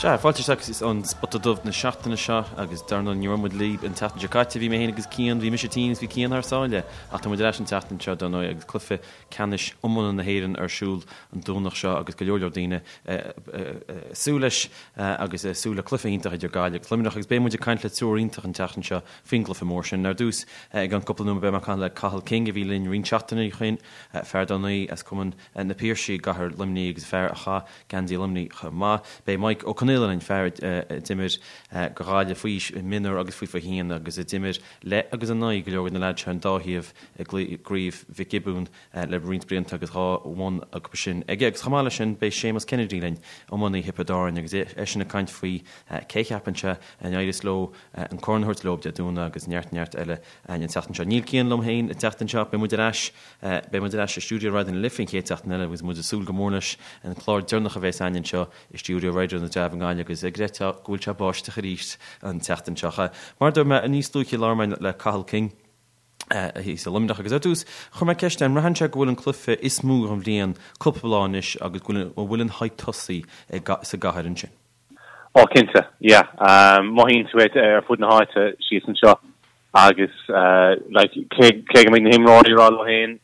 Sea, fáilte isteach is an Spota Dubh na seachtaine seo agus dar ndóigh ní raibh muid libh an tseachtain seo caite, bhí mé féin agus Cian, bhí mise tinn agus bhí Cian thar sáile ach tá muid ar ais an tseachtain seo dar ndóigh agus cluiche ceannais iomána na hÉireann ar siúl an Domhnach seo agus go leor leor daoine ag súil leis agus ag súil le cluiche iontach idir Gaillimh agus Luimneach agus beidh muid ag caint le triúr iontach an tseachtain seo faoin gcluiche mór sin. Ar dtús i gceann cúpla nóiméad beidh mé ag caint le Cathal King a bhí linn roinnt seachtainí ó shin, fear dar ndóigh as Cumann na Piarsaigh i gcathair Luimnigh agus fear a chaith geansaí Luimnigh chomh maith. Beidh Mike Ó Conaola linn, fear a d'imir do Ghaillimh faoi aois, mionúr agus faoi 21 agus a d'imir le agus in aghaidh go leor de na leaids seo ar an dá thaobh i gCraobh Mhic Giobúin le roinnt blianta agus dhá bhonn acu sin aige. Agus chomh maith leis sin beidh Séamus Kennedy linn, iománaí Thiobraid Árann agus eisean ag caint faoi cé a cheapann sé a n-éireos leo an corn a thabhairt leo Dé Domhnaigh agus neart neart eile an tseachtain seo. Níl Cian liom féin an tseachtain seo, beidh muid ar ais Beidh muid ar ais i stiúideo Raidió na Life an chéad seachtain eile agus muid ag súil go mór leis an clár deireanach a bheas againn anseo i stiúideo Raidió na dTreabh i nGaillimh agus ag creidbheáil go bhfuil sé ag báisteach arís an tseachtain seo. Mar a dúirt mé, níos luaithe labhair mé le Cathal King thíos i Luimneach agus ar dtús chuir mé ceist air an mbraitheann sé go bhfuil an cluiche is mó den bhliain cúpla lá anois agus go bhfuil an hype tosaithe sa gcathair ansin. Ó cinnte, yeah. Mothaíonn tú é ar fud na háite síos anseo agus like cé cé go mbeidh na himreoirí ag rá leo féin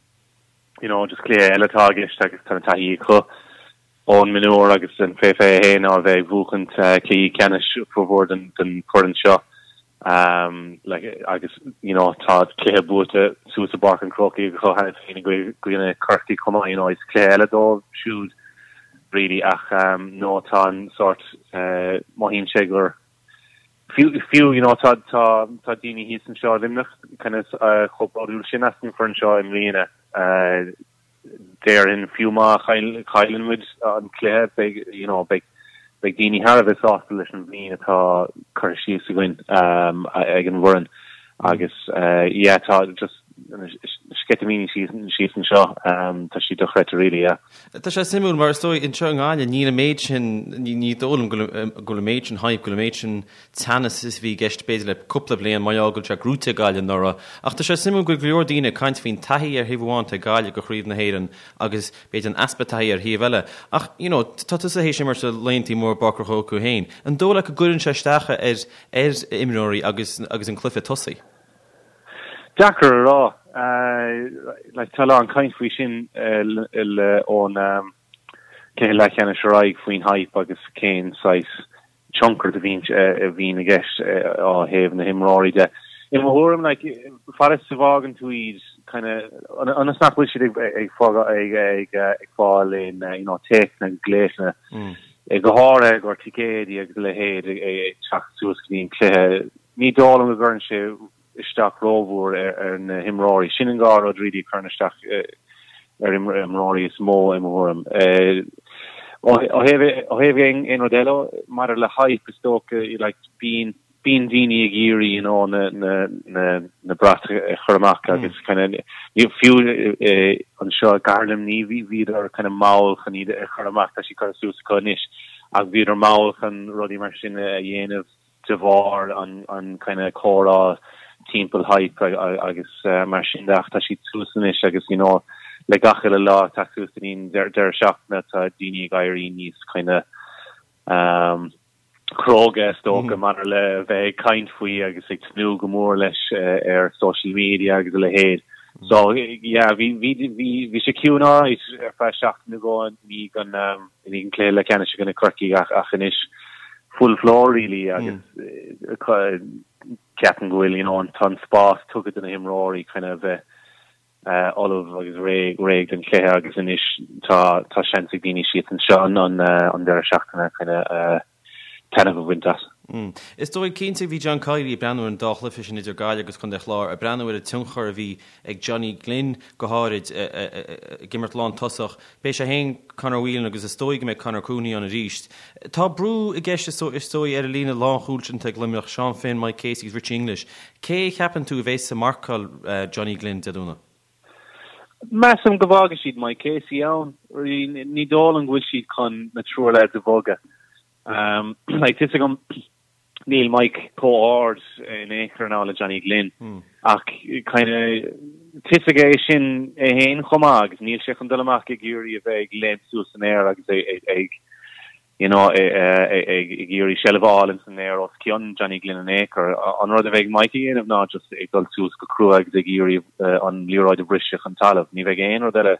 you know just cluiche eile atá i gceist agus tá an taithí acu ón mionúr agus an fé 21 á bheith ag buachaint cluichí ceannais formhór den den foireann seo like agus you know tá cluiche buaite suas i bPáirc an Chrócaigh acu cheana féin i gcoinne Corcaigh chomh maith you know is cluiche eile dóibh siúd really ach no tá an sórt mothaíonn sé gur fiú fiú you know tá tá tá daoine thíos anseo i Luimneach kind of chomh bródúil sin as an foireann seo i mbliana déarfainn fiú má chailleann muid an cluiche beidh you know beidh beidh daoine thar a bheith sásta leis an bhliain atá curtha síos againn ag an bhfoireann agus yeah tá just na sceitimíní síos anseo tá siad dochreidte really yeah. Tá sé suimiúil mar is dóigh anseo i nGaillimh níl an méid sin, ní dóigh liom go bhfuil an méid sin hype, go bhfuil an méid sin teannas is a bhí i gceist b'fhéidir le cúpla bliain mar gheall go bhfuil sé gnóite ag Gaillimh anuraidh. Ach tá sé suimiúil go bhfuil go leor daoine ag caint faoin taithí ar thaobh amháin atá ag Gaillimh go Chraobh na hÉireann agus b'fhéidir an easpa taithí ar thaobh eile. Ach you know tá tusa théis imirt i laethanta móra i bPáirc an Chrócaigh féin. An dóigh leat go gcuireann sé isteach ar ar imreoirí agus agus an cluiche tosaithe? Deacair a rá. Like tá a lán caint faoi sin ón cluiche leathcheannais ar aghaidh faoin hype agus cén saghas tionchar a bhíonn a bhíonn i gceist ó thaobh na himreoirí de. I mo thuairim, like, fad is a bhfágann tú iad kind of ionas nach bhfuil siad ag ag ag ag ag fáil aon you know téacsanna agus glaochanna go háirithe i gcomhair ticéidí agus a leithéid ag teacht suas go dtí an cluiche. Ní dóigh liom go gcuireann sé isteach rómhór ar na himreoirí. Sin an dhá rud really a chuireann isteach ar imreoirí is mó i mo thuairim. Ó thaobh aon rud eile maidir le hype is dócha like bíonn bíonn daoine ag iarraidh you know na na na na brait a chur amach agus kind of fiú anseo i gcathair Luimnigh bhí bhíodar kind of mall chun iad a chur amach tá siad curtha suas acu anois ach bhíodar mall chun rudaí mar sin a dhéanamh de bharr an kind of comhrá timpeall hype agus mar sin de ach tá siad suas anois agus you know le gach uile lá ag teacht suas go dtí an deireadh seachtaine tá daoine ag éirí níos kind of um, cróga is dócha maidir le bheith ag caint faoi agus ag tnúth go mór leis ar social media agus a leithéid. So yeah, bhí bhí bhí bhí sé ciúin alright ar feadh seachtain nó dhó i ndiaidh an um, i ndiaidh an cluiche leathcheannais i gcoinne Corcaigh ach ach anois full floor really agus ceapaim go bhfuil you know an tá an spás tugtha do na himreoirí kind of bheith ullamh agus réidh réidh don chluiche agus anois tá tá seans ag daoine síos anseo an an an deireadh seachtaine kind of taitneamh a bhaint as. Is dóigh cinnte bhí John Kiely ag breathnú ar an dá chluiche sin idir Gaillimh agus Contae Chláir, ag breathnú ar an tionchar a bhí ag Johnny Glynn go háirid ag imirt lántosach. Beidh sé féin, Conor Whelan agus is dóigh go mbeidh Conor Cooney ann arís. Tá brú i gceist is dóigh ar an líne lánchúil sin atá ag Luimneach, Seán Finn, Mike Casey agus Richie English. Cé a cheapann tú a bheas ag marcáil Johnny Glynn Dé Domhnaigh? Measaim go bhfágfaidh siad Mike Casey ann. Ní dóigh liom go bhfuil siad chun na triúr leaids a bhogadh. Like, tá a fhios agam níl Mike chomh ard in aon chor now le Johnny Glynn ach kind of tá a fhios aige é sin é féin chomh maith agus níl sé chun dul amach ag iarraidh a bheith ag léimt suas san aer agus ag ag. you know, ag iarraidh seilbh a fháil ins an aer os cionn Johnny Glynn in aon chor. An rud a bheidh Mike a dhéanamh ná just ag dul suas go crua agus ag iarraidh an liathróid a bhriseadh chun talamh. Ní bheidh aon rud eile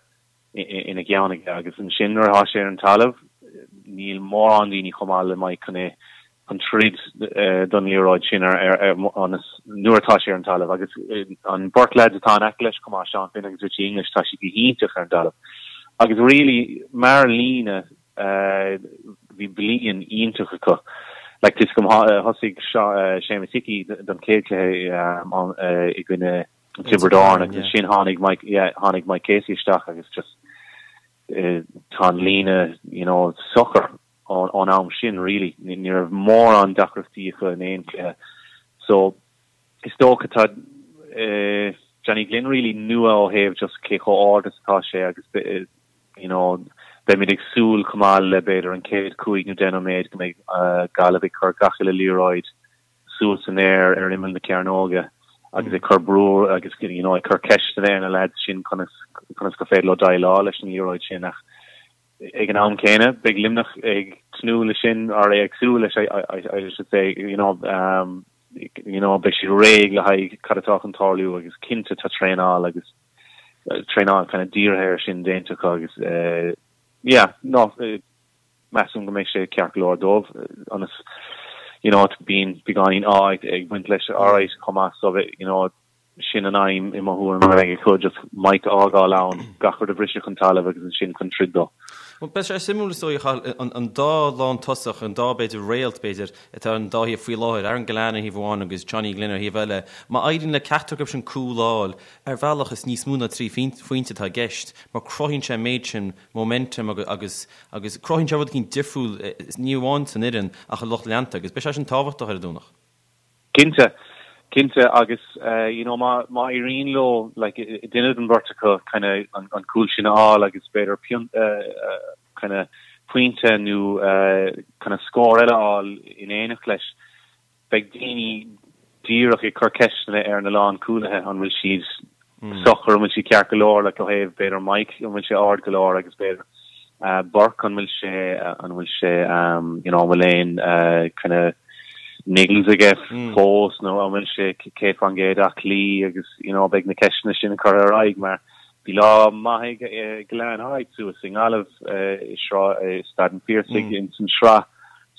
ina cheann aige agus ansin nuair atá sé ar an talamh níl mórán daoine chomh maith le Mike chun é chun troid don liathróid sin ar ar nuair atá sé ar an talamh agus an beirt lads atá in aice leis chomh maith, Seán Finn agus Richie English, tá siad go hiontach ar an dtalamh. Agus really mar líne bhí bliain iontach acu. Like tá a fhios agam thosaigh Séamus Hickey don chéad cluiche i gcoinne Tiobraid Árann agus ansin tháinig Mike yeah tháinig Mike Casey isteach agus just tá an líne you know socair ón am sin really. Ní raibh mórán deacrachtaí acu in aon chluiche. So is dócha tá Johnny Glynn really nua ó thaobh just cé chomh ard is atá sé agus you know beimid ag súil chomh maith le b'fhéidir an chéad chúig nó deich nóiméad go mbeidh Gaillimh ag cur gach uile liathróid suas san aer ar imeall na cearnóige agus ag cur brú agus you know ag cur ceisteanna ar na lads sin conas conas gur féidir leo déileáil leis an liathróid sin ach ag an am céanna beidh Luimneach ag tnúth leis sin or ag súil leis I should say you know um, you know beidh siad réidh le haghaidh cad atá chun tarlú agus cinnte tá traenáil agus traenáil kind of dírithe air sin déanta acu agus uh, yeah no uh, measaim go mbeidh sé ceart go leor dóibh ionas you know bíonn beagáinín ádh ag baint leis alright chomh maith so you know sin an aidhm i mo thuairim a bheidh acu just Mike a fhágáil ann gach rud a bhriseadh chun talaimh agus ansin chun troid dó. Bhuel beidh sé suimiúil is dóigh a Chathail an dá lántosach an dá b'fhéidir réalt b'fhéidir atá ar an dá thaobh faoi láthair Aaron Gillane ar thaobh amháin agus Johnny Glynn ar thaobh eile má éiríonn le ceachtar acu sin cúl a fháil ar bhealach is níos mó ná 3 phointe atá i gceist mar cruthaíonn sé an méid sin momentum agus agus cruthaíonn sé rud eicínt difriúil ní amháin san fhoireann ach i lucht leanta agus beidh sé sin tábhachtach ar an Domhnach. Cinnte, cinnte agus you know má má éiríonn leo like duine den bheirt acu kind of an an cúl sin a fháil agus b'fhéidir pion kind of pointe nó kind of scór eile a fháil in éineacht leis Beidh daoine díreach ag cur ceisteanna ar na lánchúlaithe, an bhfuil siad socair, an bhfuil siad ceart go leor, like ó thaobh b'fhéidir Mike, an bhfuil sé ard go leor agus b'fhéidir Burke, an bhfuil sé, an bhfuil sé, you know, an bhfuil aon kind of niggles aige fós nó an bhfuil sé 100% aclaí agus, you know, beidh na ceisteanna sin curtha ar aghaidh mar bhí lá maith ag Gillane alright suas i nGaillimh i Sráid, i Staid an Phiarsaigh ins an sraith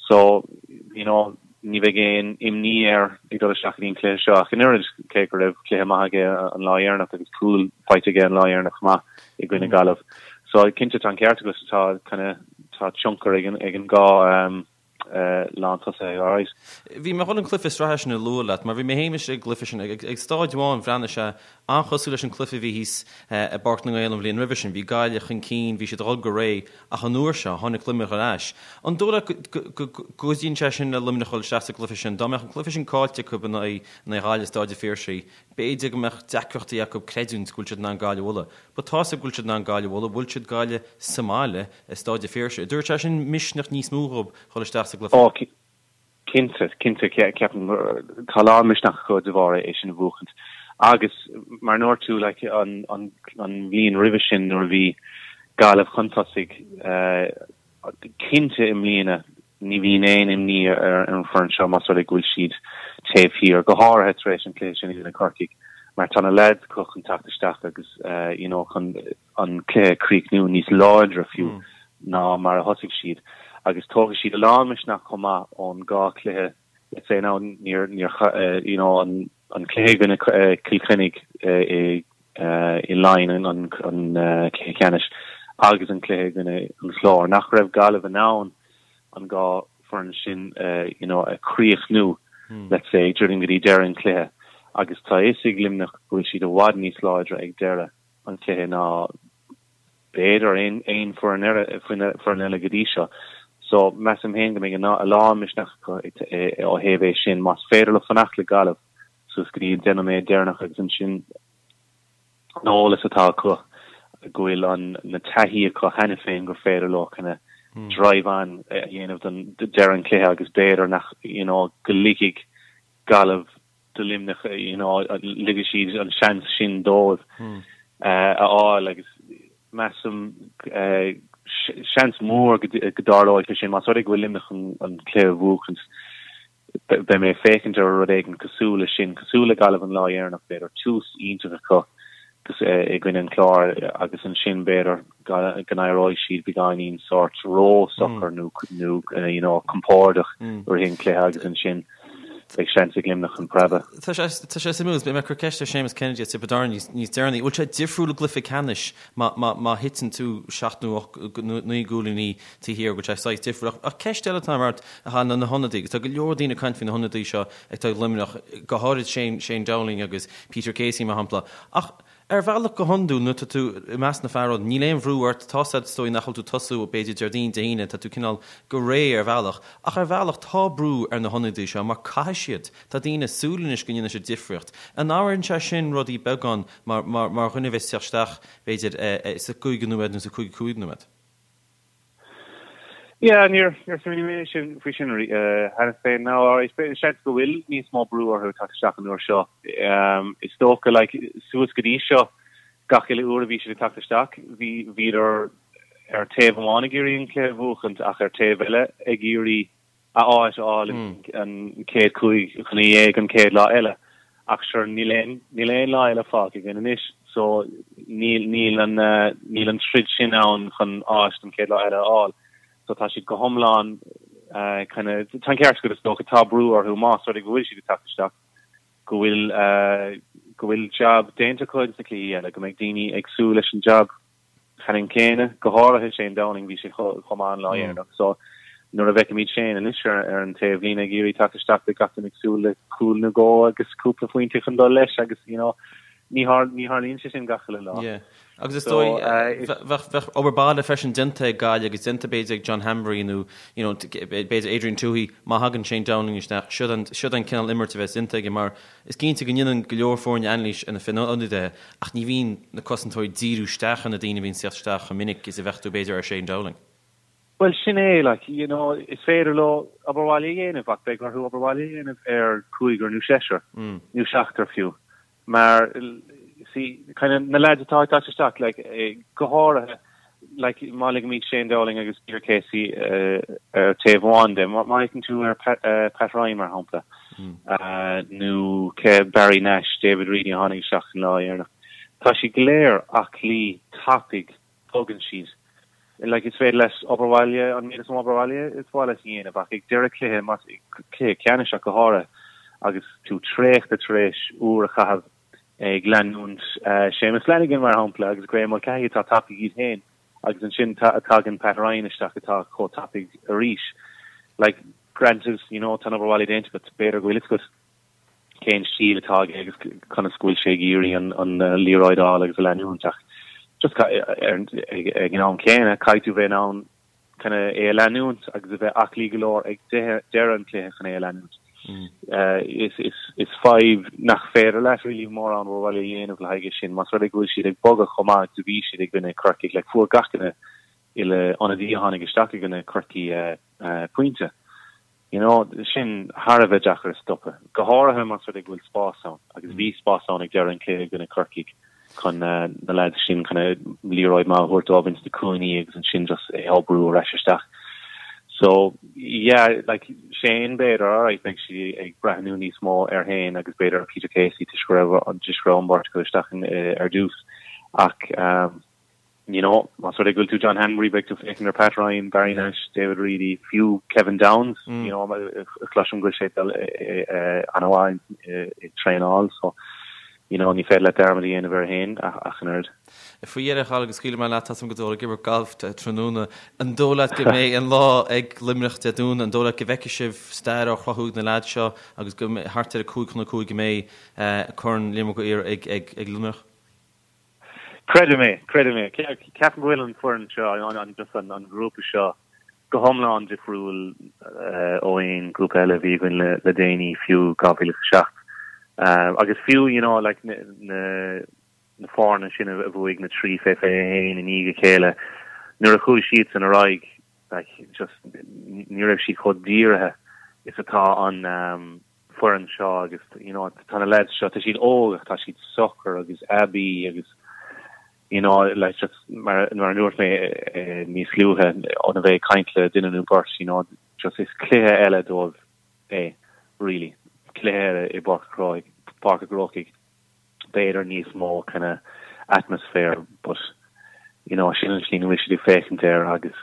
so, you know, Ní bheidh aon imní air ag dul isteach go dtí an cluiche seo ach an oiread, cé go raibh cluiche maith aige an lá dheireanach agus cúl faighte aige an lá dheireanach chomh maith i gcoinne Gaillimh. So cinnte tá an ceart agat, tá kind of tá tionchar ag an ag an dhá lántosaí alright. Bhí mé chun an cluiche sraithe sin a lua leat mar bhí mé féin istigh ag an gcluiche sin ag staid amháin bhreathnaigh sé an-chosúil leis an cluiche a bhí thíos i bPáirc na nGael an bhliain roimhe sin. Bhí Gaillimh chun cinn, bhí siad ag dul go réidh Ach an uair seo, tháinig Luimneach ar ais. An dóigh leat go gcuidíonn sé sin le Luimneach dul isteach sa gcluiche sin? Dá mbeadh an cluiche sin caillte acu in aghaidh Ghaillimh i Stáid an Phiarsaigh, b'fhéidir go mbeadh deacrachtaí acu creidiúint go bhfuil siad in ann Gaillimh a bhualadh. But tá 'fhios acu go bhfuil siad in ann Gaillimh a bhualadh, bhuail siad Gaillimh sa mbaile i Stáid an Phiarsaigh. An dtabharfaidh sé sin misneach níos mó dhóibh dhul isteach sa gcluiche? Ó, Cinnte, cinnte, ceapaim tá a lán misneach acu de bharr é sin a bhuachaint. Agus mar a ndúirt tú, like, an, an, an bhliain roimhe sin nuair a bhí Gaillimh chun tosaigh, cinnte i mbliana ní bhíonn aon imní ar an bhfoireann seo más rud é go bhfuil siad taobh thiar, go háirithe tar éis an chluiche sin i gcoinne Corcaigh, mar tá na lads acu chun teacht isteach agus, you know, chun an cluiche a chríochnú níos láidre fiú ná mar a thosaigh siad agus tógfaidh siad a lán misneach chomh maith ón dhá chluiche let's say now níor níor you know an an cluiche i gcoinne Cill Chainnigh i i Laighin an an cluiche ceannais agus an cluiche i gcoinne an Chláir nach raibh Gaillimh in ann an dhá foireann sin you know a chríochnú let's say druidim go dtí deireadh an chluiche agus tá a fhios ag Luimneach go bhfuil siad i bhfad níos láidre ag deireadh an chluiche ná b'fhéidir aon foireann eile, foireann eile go dtí seo. So measaim féin go mbeidh a lán misneach acu ó thaobh é sin. Más féidir leo fanacht le Gaillimh suas go dtí an 10 nóiméad deireanach agus ansin an eolas atá acu go bhfuil an na taithí acu cheana féin gur féidir leo kind of drive on a dhéanamh don deireadh an chluiche agus b'fhéidir nach you know go ligfidh Gaillimh do Luimneach, you know, ligfidh siad an seans sin dóibh a fháil agus measaim. Seans mór go dtarlóidh sé sin más rud é go bhfuil Luimneach chun an cluiche a bhuachaint. Beidh mé ag féachaint ar rud éigin cosúil leis sin, cosúil le Gaillimh an lá dheireanach, b'fhéidir, tús iontach acu i gcoinne an Chláir agus ansin b'fhéidir go n-éireoidh siad beagáinín sórt ró-socair nó you know compordach i rith an chluiche agus ansin beidh seans ag Luimneach chun preabadh. Tá sé tá sé suimiúil, beidh mé ag cur ceist ar Séamus Kennedy as Tiobraid Árann níos deireanaí. Bhfuil sé difriúil i gcluiche ceannais má má má thiteann tú seacht nó ocht nó naoi gcúilíní taobh thiar, go bhfuil sé saghas difriúil. Ach ceist eile atá ort, a Chathail, ná na hionadaí. Agus tá go leor daoine ag caint faoi na hionadaí seo atá ag Luimneach, go háirid Shane, Shane Dowling agus Peter Casey, mar shampla. Ach ar bhealach go hiondúil, nuair atá tú i measc na fear óg, níl aon bhrú ort, tá a fhios agat is dóigh nach bhfuil tú ag tosú b'fhéidir Déardaoin, Dé hAoine, tá tú cineál go réidh ar bhealach. Ach ar bhealach tá brú ar na hionadaí seo mar caithfidh siad, tá daoine ag súil anois go ndéanfaidh siad difríocht. An athraíonn sé sin rudaí beagán mar, mar, mar dhuine a bheas ag teacht isteach b'fhéidir sa gcúigiú nóiméad nó sa 55 nóiméad? Yeah, níor níor smaoinigh mé sin faoi sin cheana féin. Now, alright, seans go bhfuil níos mó brú orthu teacht isteach an uair seo. Is dócha, like, suas go dtí seo, gach uile uair a bhí siad ag teacht isteach, bhí bhíodar ar taobh amháin ag iarraidh an cluiche a bhuachaint ach ar taobh eile ag iarraidh a áit a fháil an chéad 15 an chéad lá eile. Ach sure, níl aon, níl aon lá eile fágtha againn anois so níl, níl an, níl an troid sin ann chun áit don chéad lá eile a fháil. So tá siad go hiomlán kind of, tá an ceart agat is dócha, tá brú orthu más rud é go bhfuil siad ag teacht isteach, go bhfuil, go bhfuil jab déanta acu ins na cluichí eile, go mbeidh daoine ag súil leis an jab ceannann céanna, go háirithe Shane Dowling, bhí sé chomh maith an lá dheireanach. So nuair a bhfeicimid Shane anois ar an taobh líne ag iarraidh teacht isteach beidh gach duine ag súil le cúl nó dhó agus cúpla phointe chun dul leis agus you know ní tharlaíonn sé sin gach uile lá. Yeah. Agus is dóigh bheadh obair baile freisin déanta ag Gaillimh agus déanta b'fhéidir ag John Hanbury nó you know b'fhéidir Adrian Tuohy má thagann Shane Dowling isteach siod an siod an cineál imirt a bheas déanta aige mar Is cinnte go ndéanann go leor foirne anailís ar na hionadaithe ach ní bhíonn na cosantóirí ag díriú isteach ar na daoine a bhíonn ag teacht isteach chomh minic is a bheadh tú b'fhéidir ar Shane Dowling. Bhuel sin é, like, you know, is féidir leo obair bhaile a dhéanamh ach beidh orthu obair bhaile a dhéanamh ar cúigear nó seisear nó seachtar fiú mar see, kind of, na lads atá ag teacht isteach, like, go háirithe, like, má ligimid Shane Dowling agus Peter Casey ar taobh amháin de, má fhéachann tú ar Pat Ryan mar shampla, nó cé Barry Nash, David Reidy a tháinig isteach an lá dheireanach, tá siad go léir aclaí, tapaidh, bogann siad. Like, is féidir leat obair bhaile, an méid is mó obair bhaile is mhaith leat a dhéanamh ach ag deireadh cluiche, más cluiche ceannais ach go háirithe, agus tú traochta tar éis uair a chaitheamh ag leanúint Séamus Flanagan, mar shampla, agus Graeme Mulcahy atá tapaidh iad féin, agus ansin tagann Pat Ryan isteach atá chomh tapaidh arís. Like, granted, you know, tá an obair bhaile déanta agat, b'fhéidir go bhfuil fhios agat cén stíl atá aige agus conas go bhfuil sé ag iarraidh an liathróid a fháil agus a leanúint ach just ag an am céanna caithfidh tú bheith in ann kind of é a leanúint agus a bheith aclaí go leor ag deireadh an chluiche chun é a leanúint. Is, is, is fadhb nach féidir leat really mórán obair bhaile a dhéanamh le haghaidh é sin. Más rud é go bhfuil siad ag bogadh chomh maith agus a bhí siad i gcoinne Corcaigh, like fuair gach duine uile ionadaí a tháinig isteach i gcoinne Corcaí pointe. You know, sin thar a bheith deacair a stopadh, go háirithe más rud é go bhfuil spás ann, agus bhí spás ann ag deireadh an chluiche i gcoinne Corcaigh chun na lads sin kind of liathróid maith a thabhairt dóibh ins na cúinní agus ansin just é a bhrú ar ais isteach. So, yeah, like Shane b'fhéidir, alright, beidh siad ag breathnú níos mó ar Shane agus b'fhéidir ar Peter Casey toisc go raibh toisc go raibh an bheirt acu isteach ar dtús. Ach um, You know, más rud é go bhfuil tú John Hanbury, beidh tú ag féachaint ar Pat Ryan, Barry Nash, David Reidy, fiú Kevin Downes, you know, cloisim go bhfuil sé ag dul an-mhaith ag traenáil, so, you know, ní féidir leat dearmad a dhéanamh air féin ach an oiread. Faoi dheireadh, a Chathail, agus scaoilfidh mé leat, tá a fhios agam go bhfuil tú ag imirt gailf tráthnóna. An dóigh leat go mbeidh an lá ag Luimneach Dé Domhnaigh, an dóigh leat go bhfeicfidh sibh stair á chruthú ag na leaids seo agus go thart ar a 5 chun 5 go mbeidh Corn Liam Mac Uidhir ag Luimneach? Creidim é, creidim é. Ceapaim go bhfuil an foireann seo, an just an grúpa seo go hiomlán difriúil ó aon grúpa eile a bhí againn le déanaí, fiú 2007. Agus fiú, you know, like na na foirne sin a bhuaigh na trí fé 21 i ndiaidh a chéile, nuair a chuaigh siadsan ar aghaidh, like just ní raibh siad chomh dírithe is atá an foireann seo agus you know tá na lads seo tá siad óg ach tá siad socair agus aibí agus. You know, like just mar mar a dúirt mé níos luaithe óna bheith ag caint le duine nó beirt, you know, just is cluiche eile dóibh é, really. Cluiche eile i bPáirc an Chrócaigh, Páirc an Chrócaigh, b'fhéidir níos mó kind of atmosphere, but you know, sin an tslí ina bhfuil siad ag féachaint air agus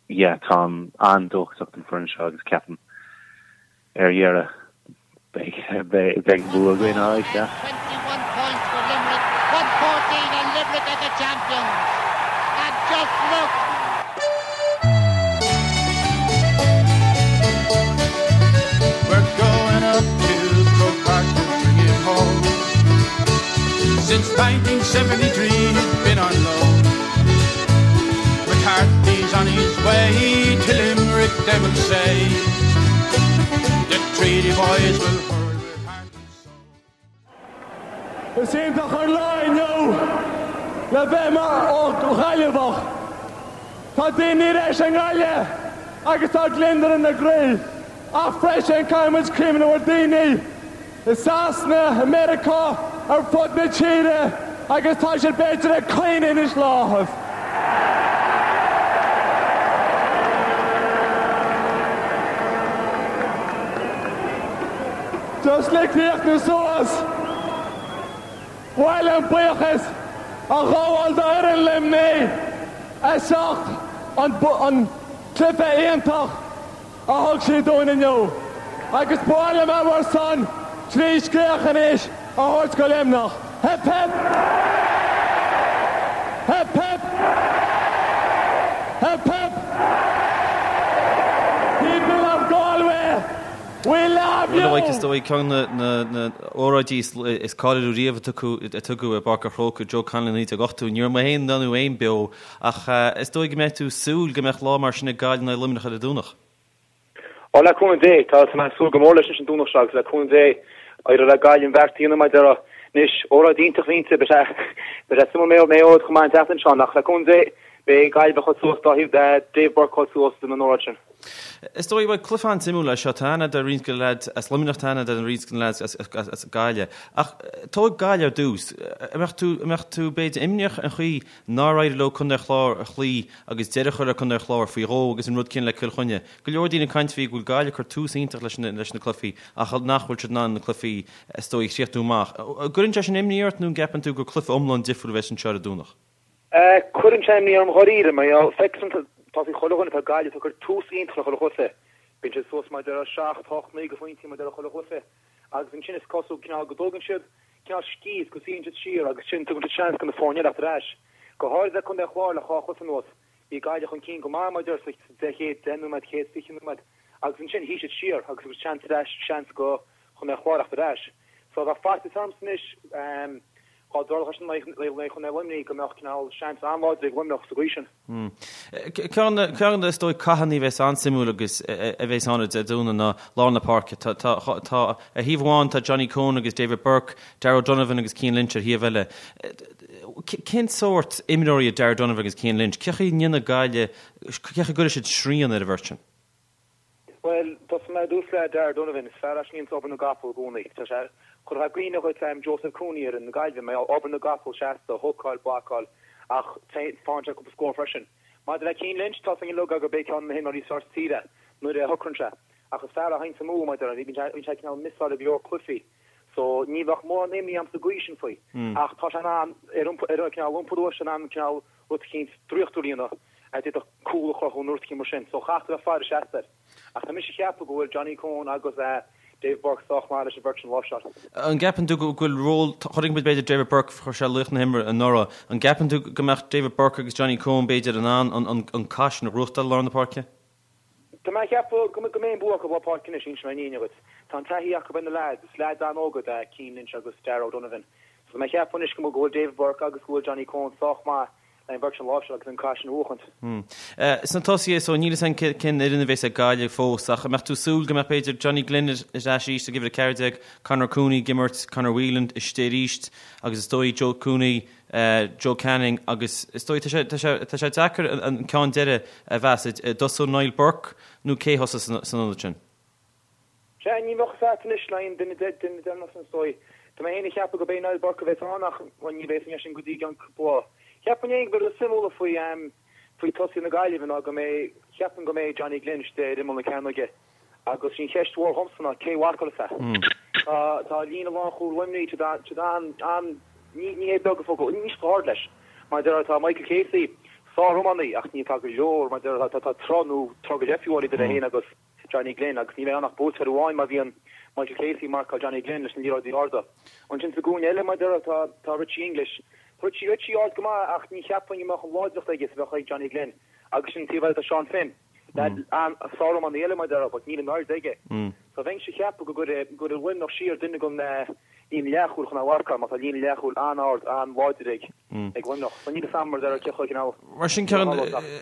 yeah, táim an-dóchasach don foireann seo agus ceapaim ar dheireadh beidh beidh an bua againn alright, yeah. 21 points for Limerick, 1-14 and Limerick are the champions. And just look! We're going up to Croke Park to bring it home. Since 1973 he's been on loan. McCarthy's on his way to Limerick, they will say. The Treaty boys will hurl with heart and soul. Is iontach an lá inniu le bheith mar Ghaillimheach. Tá daoine ar ais i nGaillimh agus tá gliondar ina gcroí. Ach freisin caithfidh muid cuimhneamh ar daoine i Sasana, i Meiriceá, ar fud na tíre agus tá siad b'fhéidir ag caoineadh anois le áthas. Just le críochnú suas, ba mhaith liom buíochas a ghabháil d'fhoireann Luimnigh as ucht an cluiche iontach a thug siad dúinn inniu agus ba mhaith liom a bhur son trí scréach anois a thabhairt go Luimneach. Hip hip! Hip hip! Hip hip! People of Galway, we love you! Bhuel, is dóigh ceann de na hóráidí is cáiliúla riamh a tugadh i bPáirc an Chrócaigh, Joe Connolly 1980. Ní raibh mé féin ná tú féin beo Ach is dóigh go mbeidh tú ag súil go mbeadh lá mar sin ag Gaillimh in aghaidh Luimneach ar an Domhnach. Ó, le cúnamh Dé, tá mé ag súil go mór leis anois an Domhnach seo agus le cúnamh Dé, éireoidh le Gaillimh an bheart a dhéanamh mar a déarfá. Anois, óráid iontach a bhí inti, beidh sé beidh sé suimiúil Maigh Eo chomh maith an tseachtain seo, ach le cúnamh Dé, beidh Gaillimh chomh suas dá thaobh Dave Burke chomh suas don óráid sin. Is dóigh, bhuel, cluiche an-suimiúil é seo. Tá aithne a'd ar roinnt de na leaids as Luimneach, tá aithne a'd ar roinnt de na leaids as Gaillimh. Ach tóg Gaillimh ar dtús. An mbeadh tú, an mbeadh tú b'fhéidir imníoch an chaoi nár éirigh leo Contae an Chláir a chloí agus deireadh a chur le Contae an Chláir faoi dhó agus an rud céanna le Cill Chainnigh. Go leor daoine ag caint faoi go bhfuil Gaillimh ag cur tús iontach leis na cluichí ach nach bhfuil siad in ann na cluichí is dóigh a chríochnú amach. An gcuireann sé sin imní ort nó an gceapann tú gur cluiche iomlán difriúil a bheas anseo ar an Domhnach? Cuireann sé imní orm dháiríre, mar gheall, feictear dom, tá a fhios ag chuile dhuine, tá Gaillimh ag cur tús iontach le chuile chluiche. Bíonn siad suas mar a déarfá 7, 8, 9 de phointí mar a déarfá chuile chluiche. Agus ansin is cosúil cineál go dtógann siad cineál scíth is go suíonn siad siar agus sin tugann siad seans do na foirne eile theacht ar ais. Go háirid le Contae an Chláir le dhá chluiche anuas. Bhí Gaillimh chun cinn go maith mar a déarfá sa chéad 10 nóiméad, chéad 20 nóiméad agus ansin shuigh siad siar agus thug siad seans ar ais, seans do Chontae an Chláir theacht ar ais. So bheadh faitíos ormsa anois dá dtarlódh sin in aghaidh Chontae Luimnigh go mbeadh cineál seans an-láidir ag Luimneach sa gcaoi sin. Ceann de na, is dóigh, cathanna a bheas an-suimiúil agus a bheas ann ar Dé Domhnaigh ná lár na páirce. Tá, tá, tá, ar thaobh amháin tá Johnny Coen agus David Burke, Darragh O'Donovan agus Cian Lynch ar thaobh eile. Cén sórt imreoirí iad Darragh O'Donovan agus Cian Lynch? Cén chaoi a ndéanfaidh Gaillimh, cén chaoi a gcuirfidh siad srian ar an bheirt sin? Bhuel, tosóidh mé ar dtús le Darragh Donovan. Is fear é sin a dhéananns obair na gcapall i gcónaí. Tá sé, chuirfeá i gcuimhne dhuit Joseph Cooney ar fhoireann na Gaillimhe, mar gheall, obair na gcapall seasta, hookáil, blocáil, ach faigheann sé cúpla scór freisin. Maidir le Cian Lynch, tá a fhios againn uilig gurb é ceann de na himreoirí is fearr sa tír é nuair a shocraíonn sé. Ach is fear é a théanns amú, mar a déarfá, bíonn sé cineál missáil i go leor cluichí. So, ní bheadh mórán imní orm sa gcaoi sin faoi. Ach tá sé in ann, ar ar cineál iompar uaidh, sé in ann cineál rud eicínt draíochtúil a dhéanamh a d'fhéadfadh cúl a chruthú nó rud eicínt mar sin. So chaithfear a bheith ag faire seasta air. Ach tá mise ag ceapadh go bhfuil Johnny Coen agus Dave Burke sách maith leis an bheirt sin a láimhseáil. An gceapann tú go bhfuil ról, chonaic muid b'fhéidir David Burke, chuir sé laoch na himeartha anuraidh, an gceapann tú go mbeadh David Burke agus Johnny Coen b'fhéidir in ann an cath sin a ghnóthachtáil i lár na páirce? Tá mé ag ceapadh go mbeidh an bua acu i lár páirce anois, inseoidh mé an fhírinne dhuit. Tá an taithí acu ar na leaids, is leaids an-óga iad Cian Lynch agus Darragh O'Donovan. So tá mé ag ceapadh anois go bhfuil David Burke agus go bhfuil Johnny Coen sách maith le an bheirt sin a láimhseáil agus an cath sin a bhuachaint. Sna tosaithe, so níl a fhios againn cén fhoireann a bheas ag Gaillimh fós ach an mbeadh tú ag súil go mbeadh b'fhéidir Johnny Glynn ar ais arís ag uimhir 14, Conor Cooney ag imirt, Conor Whelan istigh arís agus is dóigh Joe Cooney, Joe Canning agus is dóigh tá sé tá sé tá sé deacair an ceann deiridh a mheas. An dtosódh Niall Burke nó cé a thosós san ionad sin? Sea, ní bheadh fhios agat anois le aon duine deireanach sin is dóigh. Tá mé féin ag ceapadh gurb é Niall Burke a bheas ann ach, bhuel, ní bheidh fhios againn sin go dtí i gceann cúpla lá. Cheapfainn féin gurb é rud is suimiúla faoi faoi tosaithe na Gaillimhe ná go mbeidh, cheapfainn go mbeidh Johnny Glynn istigh ar imeall na cearnóige agus sí an cheist mhór dhomsa ná cé mharcálfas é. Tá tá líne lánchúil Luimnigh tá siad an an ní ní hé beag an focal, níl siad chomh hard leis. Mar a déarfá tá Michael Casey sár-iománaí ach ní tá go leor mar a déarfá tá tá troigh nó troigh go leith fiú idir é féin agus Johnny Glynn agus ní bheidh ann ach buaiteoir amháin má bhíonn Michael Casey ag marcáil Johnny Glynn leis na liathróidí arda. Ansin sa gcúinne eile, mar a déarfá, tá tá Richie English. Tá Richie Richie ard go maith ach ní cheapfainn go mbeadh an láidreacht aige is a bheadh ag Johnny Glynn. Agus sin an taobh eile tá Seán Finn. Leaid an-sár-iománaí eile mar a déarfá but níl an airde aige. So bheinnse ag ceapadh go gcuirfidh go gcuirfidh Luimneach siar duine den líne leathchúil chun é a mharcáil mar tá líne leathchúil an-ard an-láidir ag ag Luimneach. So níl a fhios agam mar a déarfá cé chomh cineál Mar sin ceann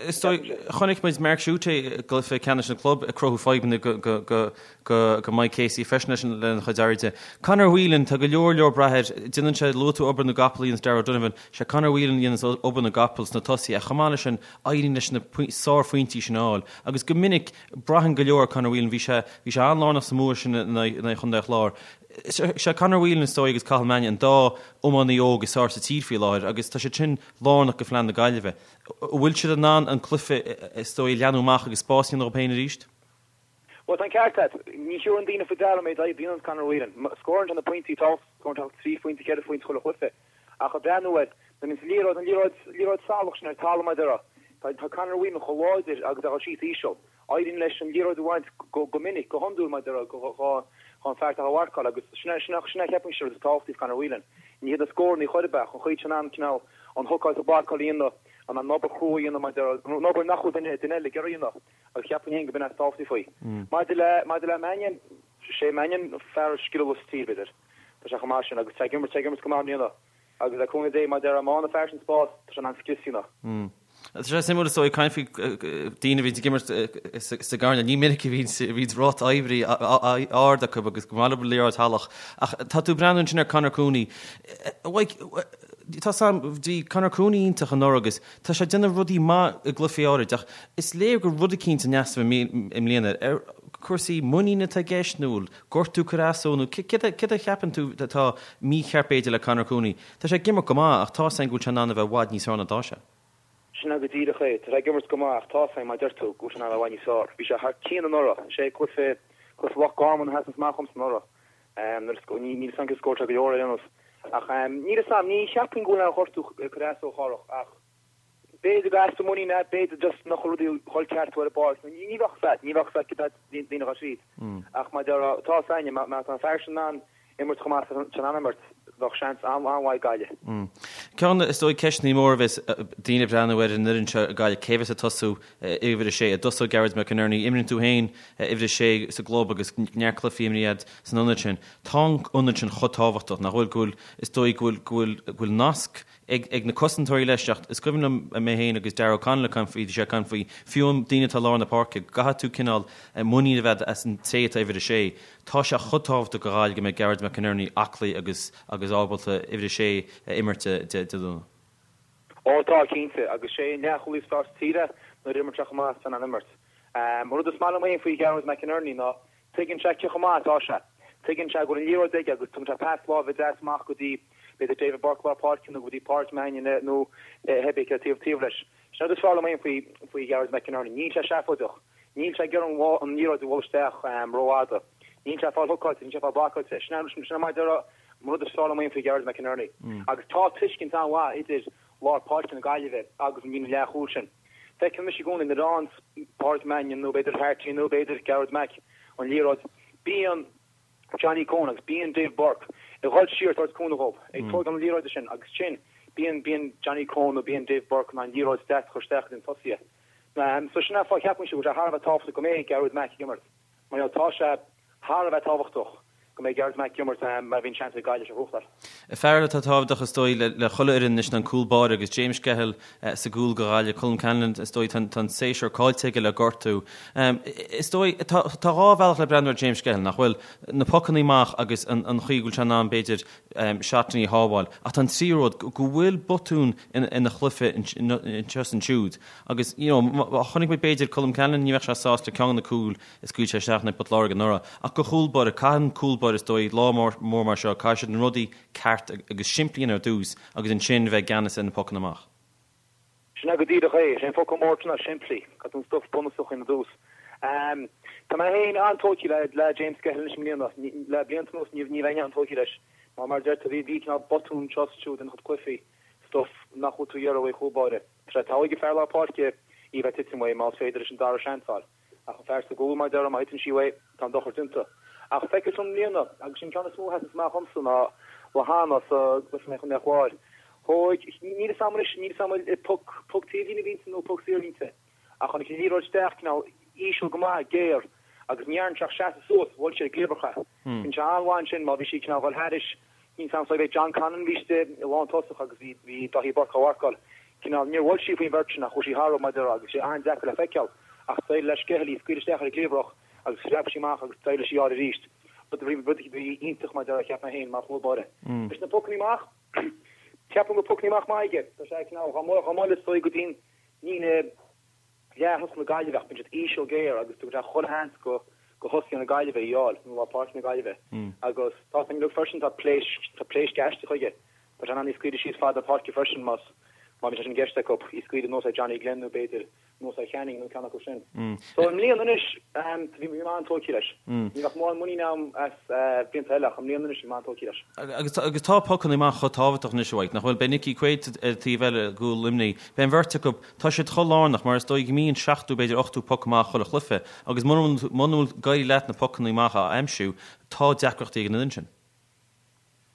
is dóigh chonaic muid Mark Schutte i gcluiche ceannais an chlub ag cruthú fadhbanna go go go go go Mike Casey freisin leis an lena chuid airde. Conor Whelan tá go leor leor brath air déanann sé luaigh tú obair na gcapall a dhéanas Darragh O'Donovan sé Conor Whelan a dhéanas obair na gcapall sna tosaithe ach chomh maith leis sin éiríonn leis na sárphointí sin a fháil agus go minic braitheann go leor ar Conor Whelan bhí sé bhí sé an-lárnach sa mbua sin in aghaidh Chontae an Chláir. Sé Conor Whelan is dóigh agus Cathal Mannion an dá iománaí óg is fearr sa tír faoi láthair agus tá siad sin lárnach go phlean na Gaillimhe. An bhfuil siad in ann an cluiche is dóigh a leathnú amach agus spás a dhéanamh dóibh féin arís? Bhuel, tá an ceart agat. Ní thabharann daoine faoi deara an méid oibre a dhéanann Conor Whelan. Scórann sé na pointí tábhachtacha, scórann sé trí phointe, ceithre phointe chuile chluiche. Ach ag breathnú air, nuair a bhíonn an liathróid, an liathróid, liathróid salach sin ar talamh mar a déarfá, tá, tá Conor Whelan chomh láidir agus é ag dul síos íseal. Éiríonn leis an liathróid a bhaint go, go minic, go hiondúil mar a déarfá, go, go, dhon fear atá á mharcáil agus sin é, sin é, sin é cheapfainnse an rud is tábhachtaí faoi Conor Whelan. Ní hiad na scóranna chor ar bith ach an chaoi tá sé in ann cineál an hookáil is an blocáil a dhéanamh, an an obair chrua a dhéanamh mar a déarfá, an obair nach bhfuil duine, duine eile ag iarraidh a dhéanamh. Agus cheapfainn féin go b'in é is tábhachtaí faoi. Maidir le, maidir le Mannion, sé Mannion an fear is scileála sa tír, b'fhéidir. Tá sé chomh maith sin agus tá ag imirt, tá ag imirt go maith i mbliana. Agus le cúnamh Dé, mar a déarfá, má fhaigheann an fear sin spás, tá sé in ann scrios a dhéanamh. Tá sé suimiúil is dóigh caint faoi daoine a bhíonn ag imirt sa gcoirnéal. Ní minic a bhíonn ráta oibre ard acu agus go maith leo liathróid shalach. Ach tá tú ag breathnú ansin ar Conor Cooney. Tá sam, bhí Conor Cooney iontach anuraidh agus tá sé ag déanamh rudaí maith i gcluichí áirid ach is léir go rud eicínt in easnamh i mbliana ar cúrsaí muiníne atá i gceist nó bhfuil gortú ag cur as dó nó céard a cheapann tú atá mícheart b'fhéidir le Conor Cooney? Tá sé ag imirt go maith ach tá 's againn go bhfuil sé in ann a bheith i bhfad níos fearr ná atá sé. Sin é go díreach é. Tá sé ag imirt go maith ach tá 's againn, mar a deir tú, go bhfuil sé in ann a bheith i bhfad níos fearr. Bhí sé thar cionn anuraidh. Is é cluiche cluiche Loch Garman a sheasann amach dhomsa anuraidh. Nuair a níl 'fhios a'm cé scór sé go leor ar aon nós. Ach níl 'fhios a'm, ní cheapfainn go bhfuil aon ghortú ag cur as dó a Chárthach ach b'fhéidir gur easpa muiníne é, b'fhéidir just nach bhfuil rudaí ag dhul ceart ar an bpáirc. Ní bheadh 'fhios a'd, ní bheadh 'fhios a'd cad daoine a tríd. Ach mar a déarfá, tá 'fhios a'inne, má tá an fear sin in ann imirt chomh maith is atá in ann imirt, bheadh seans an-mhaith ag Gaillimh. Ceann, is dóigh, ceisteanna móra a bheas daoine ag breathnú ar an fhoireann seo ag Gaillimh, cé bheas ag tosú uimhir a sé? An dtosóidh Gearóid McInerney? Imríonn tú féin uimhir a sé sa gclub agus neart cluichí imrithe agat san ionad sin. Tá an ionad sin chomh tábhachtach, nach bhfuil, go bhfuil, is dóigh go bhfuil, go bhfuil, go bhfuil nasc ag, ag na cosantóirí leis ach is cuimhin liom mé féin agus Darragh O'Connell ag caint faoi, bhí sé ag caint faoi, fiú an daoine atá i lár na páirce, go gcaithfidh tú cineál muinín a bheith as an té atá uimhir a sé. Tá sé chomh tábhachtach do Ghaillimh go mbeidh Gearóid McInerney aclaí agus agus ábalta uimhir a sé a imirt Dé Domhnaigh. Ó tá, cinnte, agus sé an leathchúlaí is fearr sa tír é nuair a imríonn sé chomh maith is atá in ann imirt. An rud is maith liom féin faoi Ghearóid McInerney ná tuigeann sé cé chomh maith atá sé. Tuigeann sé go bhfuil an liathróid aige agus tugann sé pas láimhe deas amach go dtí b'fhéidir David Burke lár páirce nó go dtí Pádraic Mannion nó cibé cé taobh taobh leis. Sin an rud is fearr liom féin faoi faoi Ghearóid McInerney. Níl sé seafóideach. Níl sé ag iarraidh an liathróid a bhualadh isteach rófhada. Níl sé ag fáil hookáilte, níl sé ag fáil blocáilte. Sin é sin é mar a déarfá an rud is fearr liom féin faoi Ghearóid McInerney. Agus tá tuiscint an-mhaith idir lár páirce na Gaillimhe agus an líne leathchúil sin. Feicim anois i gcónaí nuair a fhaigheann Pádraic Mannion nó b'fhéidir Harty nó b'fhéidir Gearóid Mac an liathróid, bíonn Johnny Coen agus bíonn Dave Burke ag dhul siar ag tabhairt cúnamh dhóibh, ag tógáil na liathróide sin agus sin bíonn bíonn Johnny Coen nó bíonn Dave Burke in ann liathróid deas a chur isteach go dtí na tosaithe. So sin an fáth ceapaimse go bhfuil sé thar a bheith tábhachtach go mbeidh Gearóid Mac ag imirt. Mar gheall tá sé thar a bheith tábhachtach go mbeidh Gearóid Mac ag imirt má bhíonn seans ag Gaillimh seo a ghnóthachtáil. Fear eile atá tábhachtach is dóigh le chuile fhoireann anois ná an cúl báire agus James Skehill sa gcúl do Ghaillimh, Colm Callanan is dóigh tá an séasúr caillte aige le gortú. Is dóigh tá dhá bhealach le breathnú ar James Skehill, nach bhfuil? Na pocannaí amach agus an chaoi go bhfuil sé in ann b'fhéidir seatannaí a shábháil. Ach tá an tríú rud, go bhfuil botún ina chluiche anseo is ansiúd agus you know chonaic muid b'fhéidir Colm Callanan ní bheadh sé sásta le ceann de na cúil a scaoil sé isteach in aghaidh Port Láirge anuraidh. Ach do chúl báire, caitheann cúl báire is dóigh lá mór mar seo, caithfidh siad na rudaí ceart agus simplí a dhéanamh ar dtús agus ansin bheith i gceannas ar na pocanna amach. Sin é go díreach é. Is é an focal mór ná simplí. Caithfidh tú an stuif bunúsach a dhéanamh ar dtús. Tá mé féin an-tógtha le le James Skehill anois i mbliana. Le blianta anuas ní ní bheinn an-tógtha leis. Mar mar a deir tú bhí bhí cineál botún anseo is ansiúd ina chuid cluichí. Stuif nach bhfuil tú ag iarraidh uaidh chúl báire. Tá sé togha ag fear lár páirce í bheith titim uaidh más féidir leis an dara seans a fháil. Ach an fear sa gcúl, mar a déarfá, má thiteann sí uaidh, tá an dochar déanta. Ach feictear dom i mbliana, agus sin ceann is mó a sheasanns amach dhomsa ná Lehane sa gcluiche in aghaidh an Chláir. Thóig, níl fhios a'm anois, níl fhios a'm an poc, poc taobhlíne a bhí inti nó poc saor a bhí inti, ach tháinig an liathróid isteach cineál íseal go maith, géar, agus ní dhearn sé ach seasamh suas, bhuail sé ar an gcliabhrach é. Bíonn sé an-mhaith ansin má bhí sí cineál dhul thairis, níl fhios a'm so bhí John Conlon bhí istigh i lántosach agus bhí bhí Daithí Burke á mharcáil. Cineál, níor bhuail sí faoin bheirt sin ach chuaigh sí tharthu mar a déarfá agus sé an-deacair le feiceáil ach d'éirigh le Skehill í a scaoileadh isteach ar an gcliabhrach agus phreab sí amach agus d'éirigh leis í a fháil arís. Rud a bhí rud a bhí iontach mar a déarfá cheap mé féin mar chúl báire. Leis na pocannaí amach, ceapaim go bhfuil pocannaí amach maith aige. Tá sé cineál chomh maith le is go dtí an líne leath-thosach na Gaillimhe ach bíonn siad íseal géar agus tugann sé chuile sheans go go thosaithe na Gaillimhe í fháil, nó lár páirce na Gaillimhe. Agus tá san uilig freisin, tá pléisc, tá pléisc aisteach aige. Tá sé in ann í scaoileadh síos fad na páirce freisin más má bhíonn sé sin i gceist acu, í scaoileadh anuas ar Johnny Glenn nó b'fhéidir anuas ar Channing nó ceann acu sin. So i mbliana anois, bhí mé an-tógtha leis. Ní bheadh mórán muinín agam as blianta eile ach i mbliana anois bhí mé an-tógtha leis. Agus agus tá pocanna amach chomh tábhachtach anois a Mhaidhc, nach bhfuil? Beidh Nickie Quaid ar an taobh eile i gcúl Luimnigh. Beidh an bheirt acu, Tá siad chomh lárnach, mar is dóigh go mbíonn seachtú, b'fhéidir ochtú poc amach chuile chluiche, agus muna bhfuil ag éirí leat na pocanna amach a aimsiú, tá deacrachtaí ag an fhoireann sin.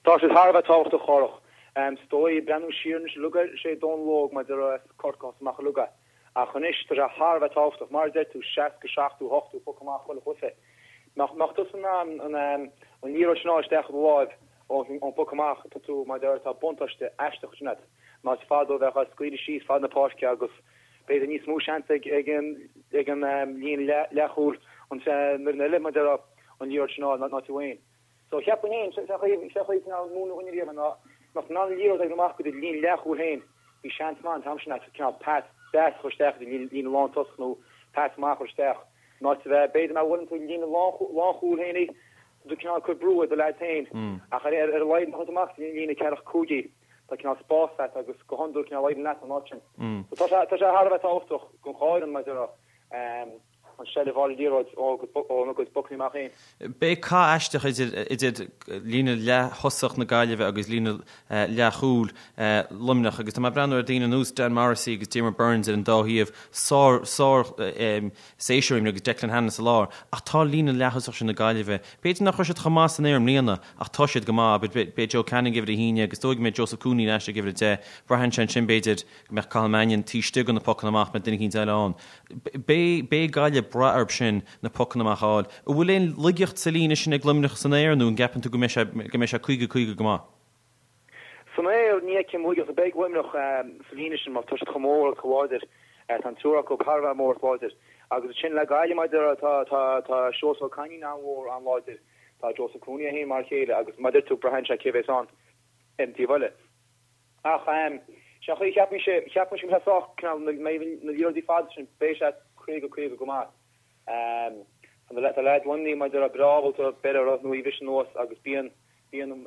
Tá siad thar a bheith tábhachtach, a Chárthach. Is dóigh, breathnú siar anois uilig air, sé Dónal Óg mar a déarfá as Corcaigh a thosaigh amach uilig é. Ach anois, tá sé thar a bheith tábhachtach, mar a deir tú, 60, 70, 80 poc amach chuile chluiche. Mbeadh tusa in ann an liathróid sin a fháil isteach i do láimh ón bpoc amach, tá tú, mar a déarfá, tá buntáiste aisteach ansin agat. Más fada ó bheith á scaoileadh síos fad na páirce agus b'fhéidir níos mó seans ag an ag an líne leathchúil an fhoireann eile mar a déarfá an liathróid sin a fháil ná tú féin. So cheapfainn féin, sé chaoi sé chaoi cineál múineadh dhuine riamh ná mbeadh tú in ann an liathróid a oibriú amach go dtí líne leathchúil féin, bhí seans maith an t-am sin agat cineál pas deas a chur isteach go dtí líne lántosach nó pas amach a chur isteach in áit a bheith b'fhéidir má bhuaileann tú líne lánchúil féin í, tá tú cineál ag cur brú ar do leaids féin ach ar ar a laghad má chuireann tú amach go dtí líne ceathracha cúig í. Tá cineál spás agat agus go hiondúil cineál éiríonn leat an áit sin. So tá sé tá sé thar a bheith tábhachtach don dhá fhoireann mar a déarfá an seilbh a fháil ar an liathróid óna gcuid pocanna amach féin. Beidh cath aisteach idir idir líne leath-thosach na Gaillimhe agus líne leath-chúil Luimneach agus tá mé ag breathnú ar daoine ar nós Dan Morrissey agus Diarmaid Byrnes ar an dá thaobh, sár sár séasúr agus Declan Hannon sa lár ach tá líne leath-thosach sin na Gaillimhe, b'fhéidir nach raibh siad chomh maith san aer i mbliana ach tá siad go maith. Beidh Joe Canning ag uimhir a haon agus is dóigh go mbeidh Joseph Cooney ar ais ag uimhir a 10. Braitheann sé ansin b'fhéidir go mbeadh Cathal Mannion taobh istigh de na pocanna amach, mbeadh duine eicínt eile ann. Beidh beidh Gaillimh ag brath orthu sin na pocanna amach a fháil. An bhfuil aon laigeacht sa líne sin ag Luimneach san aer nó an gceapann tú go mbeidh sé go mbeidh sé 50, 50 go maith? San aer, ní fheicim laigeacht ar bith ag Luimneach sa líne sin mar tá siad chomh mór agus chomh láidir. Tá an triúr acu thar a bheith mór agus láidir. Agus ansin le Gaillimh, mar a déarfá, tá tá Seosamh Ó Cainín an-mhór, an-láidir. Tá Joseph Cooney é féin mar a chéile agus mar a deir tú, braitheann sé cé bhéas ann ar an taobh eile. Ach sé an chaoi a cheapaimse, cheapaimse go mbeidh sé sách, cineál, na liathróidí fada sin, beidh sé 50, 50 go maith. Tá leaids Luimnigh, mar a déarfá, breá ábalta beir orthu nó í a bhriseadh anuas agus bíonn, bíonn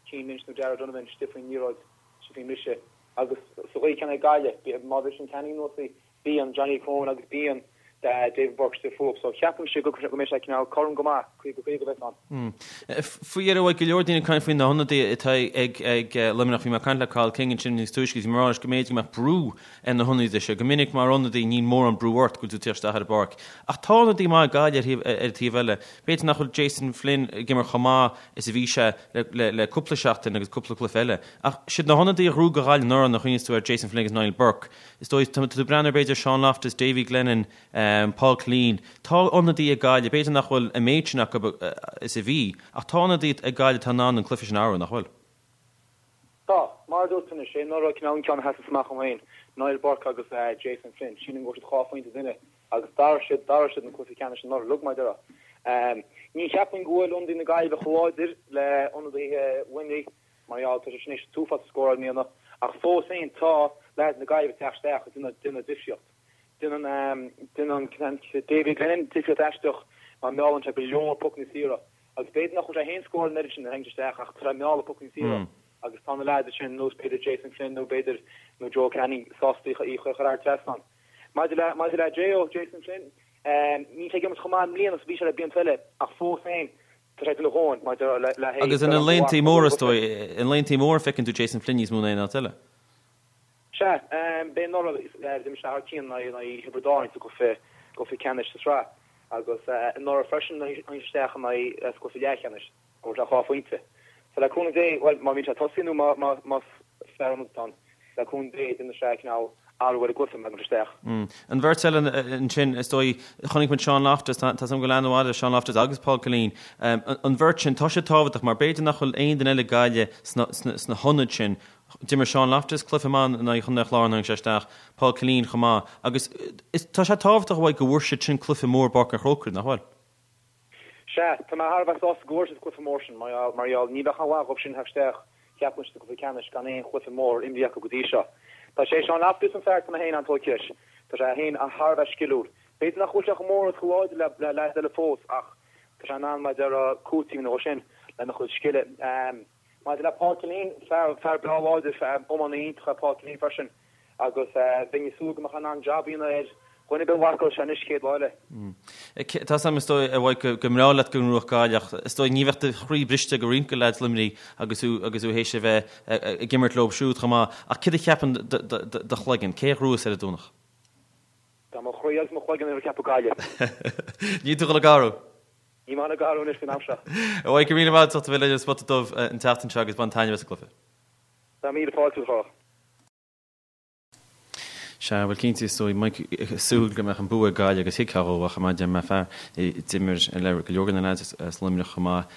Cian Lynch nó Darragh Donovan istigh faoin liathróid, istigh faoin mbriseadh. Agus sa gcaoi chéanna ag Gaillimh, má bhriseann Canning anuas í, bíonn Johnny Cronin agus bíonn David Burke istigh fúthu. So ceapaimse go mbeidh sé cineál cothrom go maith, 50, 50 a bheas ann. Faoi dheireadh, bhí go leor daoine ag caint faoi na hionadaithe atá ag Luimneach. Bhí mé ag caint le Cathal King ansin níos túisce agus bhí mé ag rá leis go mb'fhéidir go mbeadh brú ar na hionadaithe seo. Go minic mar ionadaí níl mórán brú ort go bhfuil tú ag teacht isteach ar an bpáirc. Ach tá ionadaí maith ag Gaillimh ar an taobh eile. B'fhéidir nach bhfuil Jason Flynn ag imirt chomh maith is a bhí sé le cúpla seachtain agus cúpla cluiche eile. Ach siad na hionadaithe a ghnóthaigh do Ghaillimh anuraidh, nuair a chuimhníos tú ar Jason Flynn agus Niall Burke. Is dóigh, tá tú ag breathnú ar b'fhéidir Sean Loftus, Davy Glennon, Paul Killeen. Tá ionadaithe ag Gaillimh, b'fhéidir nach bhfuil an méid sin acu is a bhí, ach tá ionadaithe ag Gaillimh atá in ann an cluiche sin a athrú, nach bhfuil? Tá. Mar a dúirt tú anois, sé anuraidh cineál an ceann a sheasas amach dhom féin, Niall Burke agus Jason Flynn. Sílim go bhfuair siad dhá phointe duine agus d'athraigh siad, d'athraigh siad an cluiche ceannais anuraidh uilig, mar a déarfá. Ní cheapaim go bhfuil ionadaithe na Gaillimhe chomh láidir le ionadaithe Luimnigh. Mar gheall, tá sé sin éis an t-uafás a scóráil i mbliana, ach fós féin tá leaids na Gaillimhe ag teacht isteach ag déanamh difríocht. Déanann déanann Davy Glennon difríocht aisteach mar meallann sé go leor pocanna saora agus b'fhéidir nach bhfuil sé féin ag scóráil an oiread sin nuair a thagann sé isteach ach tá sé ag mealladh pocanna saora. Agus tá na leaids sin, nós b'fhéidir Jason Flynn nó b'fhéidir nó Joe Canning sásta í a chur thar trasnán. Maidir le maidir le J.O. Jason Flynn, níl sé ag imirt chomh maith i mbliana is a bhí sé le blianta eile ach fós féin tá sé ag déanamh a dhóthain maidir le le hé Agus ina laethanta móra is dóigh, ina laethanta móra feiceann tú Jason Flynn níos mó ná aon áit eile. Sea, b'é anuraidh d'imir sé thar cionn in aghaidh Thiobraid Árann sa gcluiche gcluiche ceannais sa tsraith agus anuraidh freisin tháinig sé isteach in aghaidh sa gcluiche leathcheannais. Fuair sé 2 phointe. So le cúnamh Dé, bhuel, má bhíonn sé ag tosaí nó má, más fear ionaid atá ann, le cúnamh Dé, déanfaidh sé cineál athrú ar an gcluiche má thagann sé isteach. An bheirt eile ansin, is dóigh, chonaic muid Sean Loftus, tá 's agam go bhfuil aithne mhaith ar Sean Loftus agus Paul Killeen. An bheirt sin, tá siad tábhachtach mar b'fhéidir nach bhfuil aon duine eile ag Gaillimh sna hionaid sin. D'imir Sean Loftus cluiche maith in aghaidh Chontae an Chláir nuair a tháinig sé isteach, Paul Killeen chomh maith. Agus tá sé tábhachtach uaidh go bhfuair siad sin cluiche mór i bPáirc an Chrócaigh, nach bhfuil? Sea, tá mé thar a bheith sásta go bhfuair siad cluiche mór sin, mar gheall, ní bheadh aon mhaith dhóibh sin theacht isteach, cheapfainn, sa gcluiche ceannais gan aon chluiche mór imrithe acu go dtí seo. Tá sé Sean Loftus an fear atá mé féin an-tógtha leis. Tá sé féin thar a bheith sciliúil. B'fhéidir nach bhfuil sé chomh mór agus chomh láidir le leaids eile fós ach tá sé in ann, mar a déarfá, cúiteamh a dhéanamh dhó sin lena chuid scile. Maidir le Paul Killeen, fear, fear breá láidir, fear iománaí iontach é Paul Killeen freisin agus bheinn ag súil go mbeadh sé in ann jab a dhéanamh ar dhuine ar bith a mharcálfadh sé anois chéad lá eile. Tá 's agam is dóigh, a Mhaidhc, go mbreá leat go ngnóthódh Gaillimh ach is dóigh ní bheadh do chroí briste go roinnt de leaids Luimnigh agus thú agus thú théis a bheith ag imirt leo siúd chomh maith. Ach céard a cheapann do chloigeann? Cé a ghnóthós ar an Domhnach? Tá mo chroí agus mo chloigeann ag ceapadh Gaillimh. Níl tú ag dul ag athrú? Níl mé ag athrú anois faoin am seo. A Mhaidhc, go raibh míle maith agat as ucht a bheith linn ar Spota Dubh an tseachtain seo agus bain taitneamh as an gcluiche. Tá míle fáilte romhat, a Chárthach. Sea, bhuel cinnte, is dóigh, Mike ag súil go mbeadh an bua ag Gaillimh agus thuigfeá dhó ach mar a deir mé fear a d'imir le go leor de na lads as Luimneach chomh maith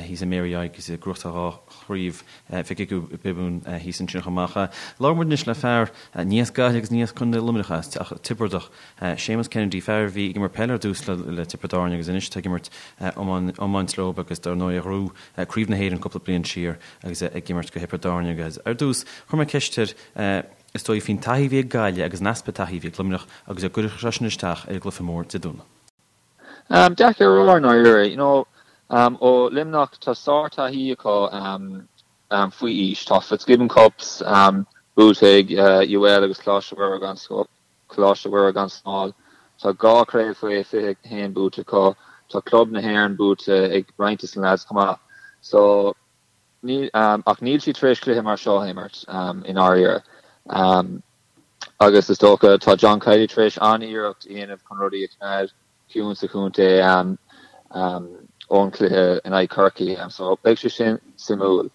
thíos i Mary agus ag gnóthachtáil dhá chraobh Mhic Giobúin thíos ansin chomh maith. Labhróidh muid anois le fear ní as Gaillimh agus ní as Contae Luimneach ach Tiobradach, Séamus Kennedy, fear a bhí ag imirt peile ar dtús le Tiobraid Árann agus anois tá ag imirt iomáint leo agus dar ndóigh a ghnóthaigh Craobh na hÉireann cúpla bliain siar agus é ag imirt do Thiobraid Árann agus ar dtús chuir mé ceist air is dóigh faoin taithí a bhí ag Gaillimh agus an easpa taithí a bhí ag Luimneach agus an gcuirfeadh sé sin isteach ar an gcluiche mór Dé Domhnaigh. Deacair a rá i ndáiríre. You know, ó Luimneach tá sár-taithí acu faoi aois. Tá Fitzgibbon Cups buaite ag UL agus Coláiste Mhuire gan Coláiste Mhuire gan Smál. Tá 2 chraobh faoi 21 buaite acu. Tá Club na hÉireann buaite ag roinnt de na lads chomh maith. So, níl, ach níl siad tar éis cluiche mar seo a imirt, i ndáiríre. Agus is dócha, tá John Kiely tar éis an-iarracht a dhéanamh chun rudaí a choimeád ciúin sa chontae ón chluiche in aghaidh Chorcaí. So, beidh sé sin suimiúil.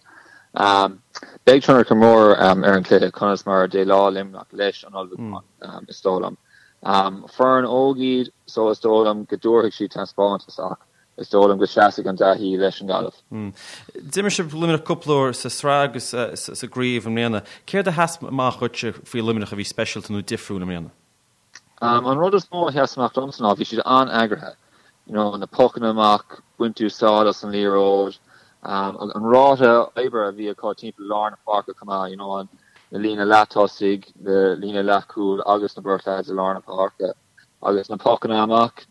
Beidh tionchar mór ar an chluiche conas mar a dhéileáil Luimneach leis an ullmhúchán, is dóigh liom. Foireann óg iad so is dóigh liom go dtabharfaidh siad taispeántas ach is dóigh liom go seasfaidh an taithí leis an nGaillimh. D'imir sibh Luimneach cúpla uair sa tsraith agus sa gcraobh i mbliana. Céard a sheas amach dhuitse faoi Luimneach a bhí speisialta nó difriúil i mbliana? An rud is mó a sheas amach domsa ná bhí siad an-eagraithe. You know, na pocanna amach, baint úsáid as an liathróid, an ráta oibre a bhí acu timpeall lár na páirce chomh maith, you know, an na líne leath-tosaigh, na líne leath-chúil agus na beirt lads i lár na páirce agus na pocanna amach,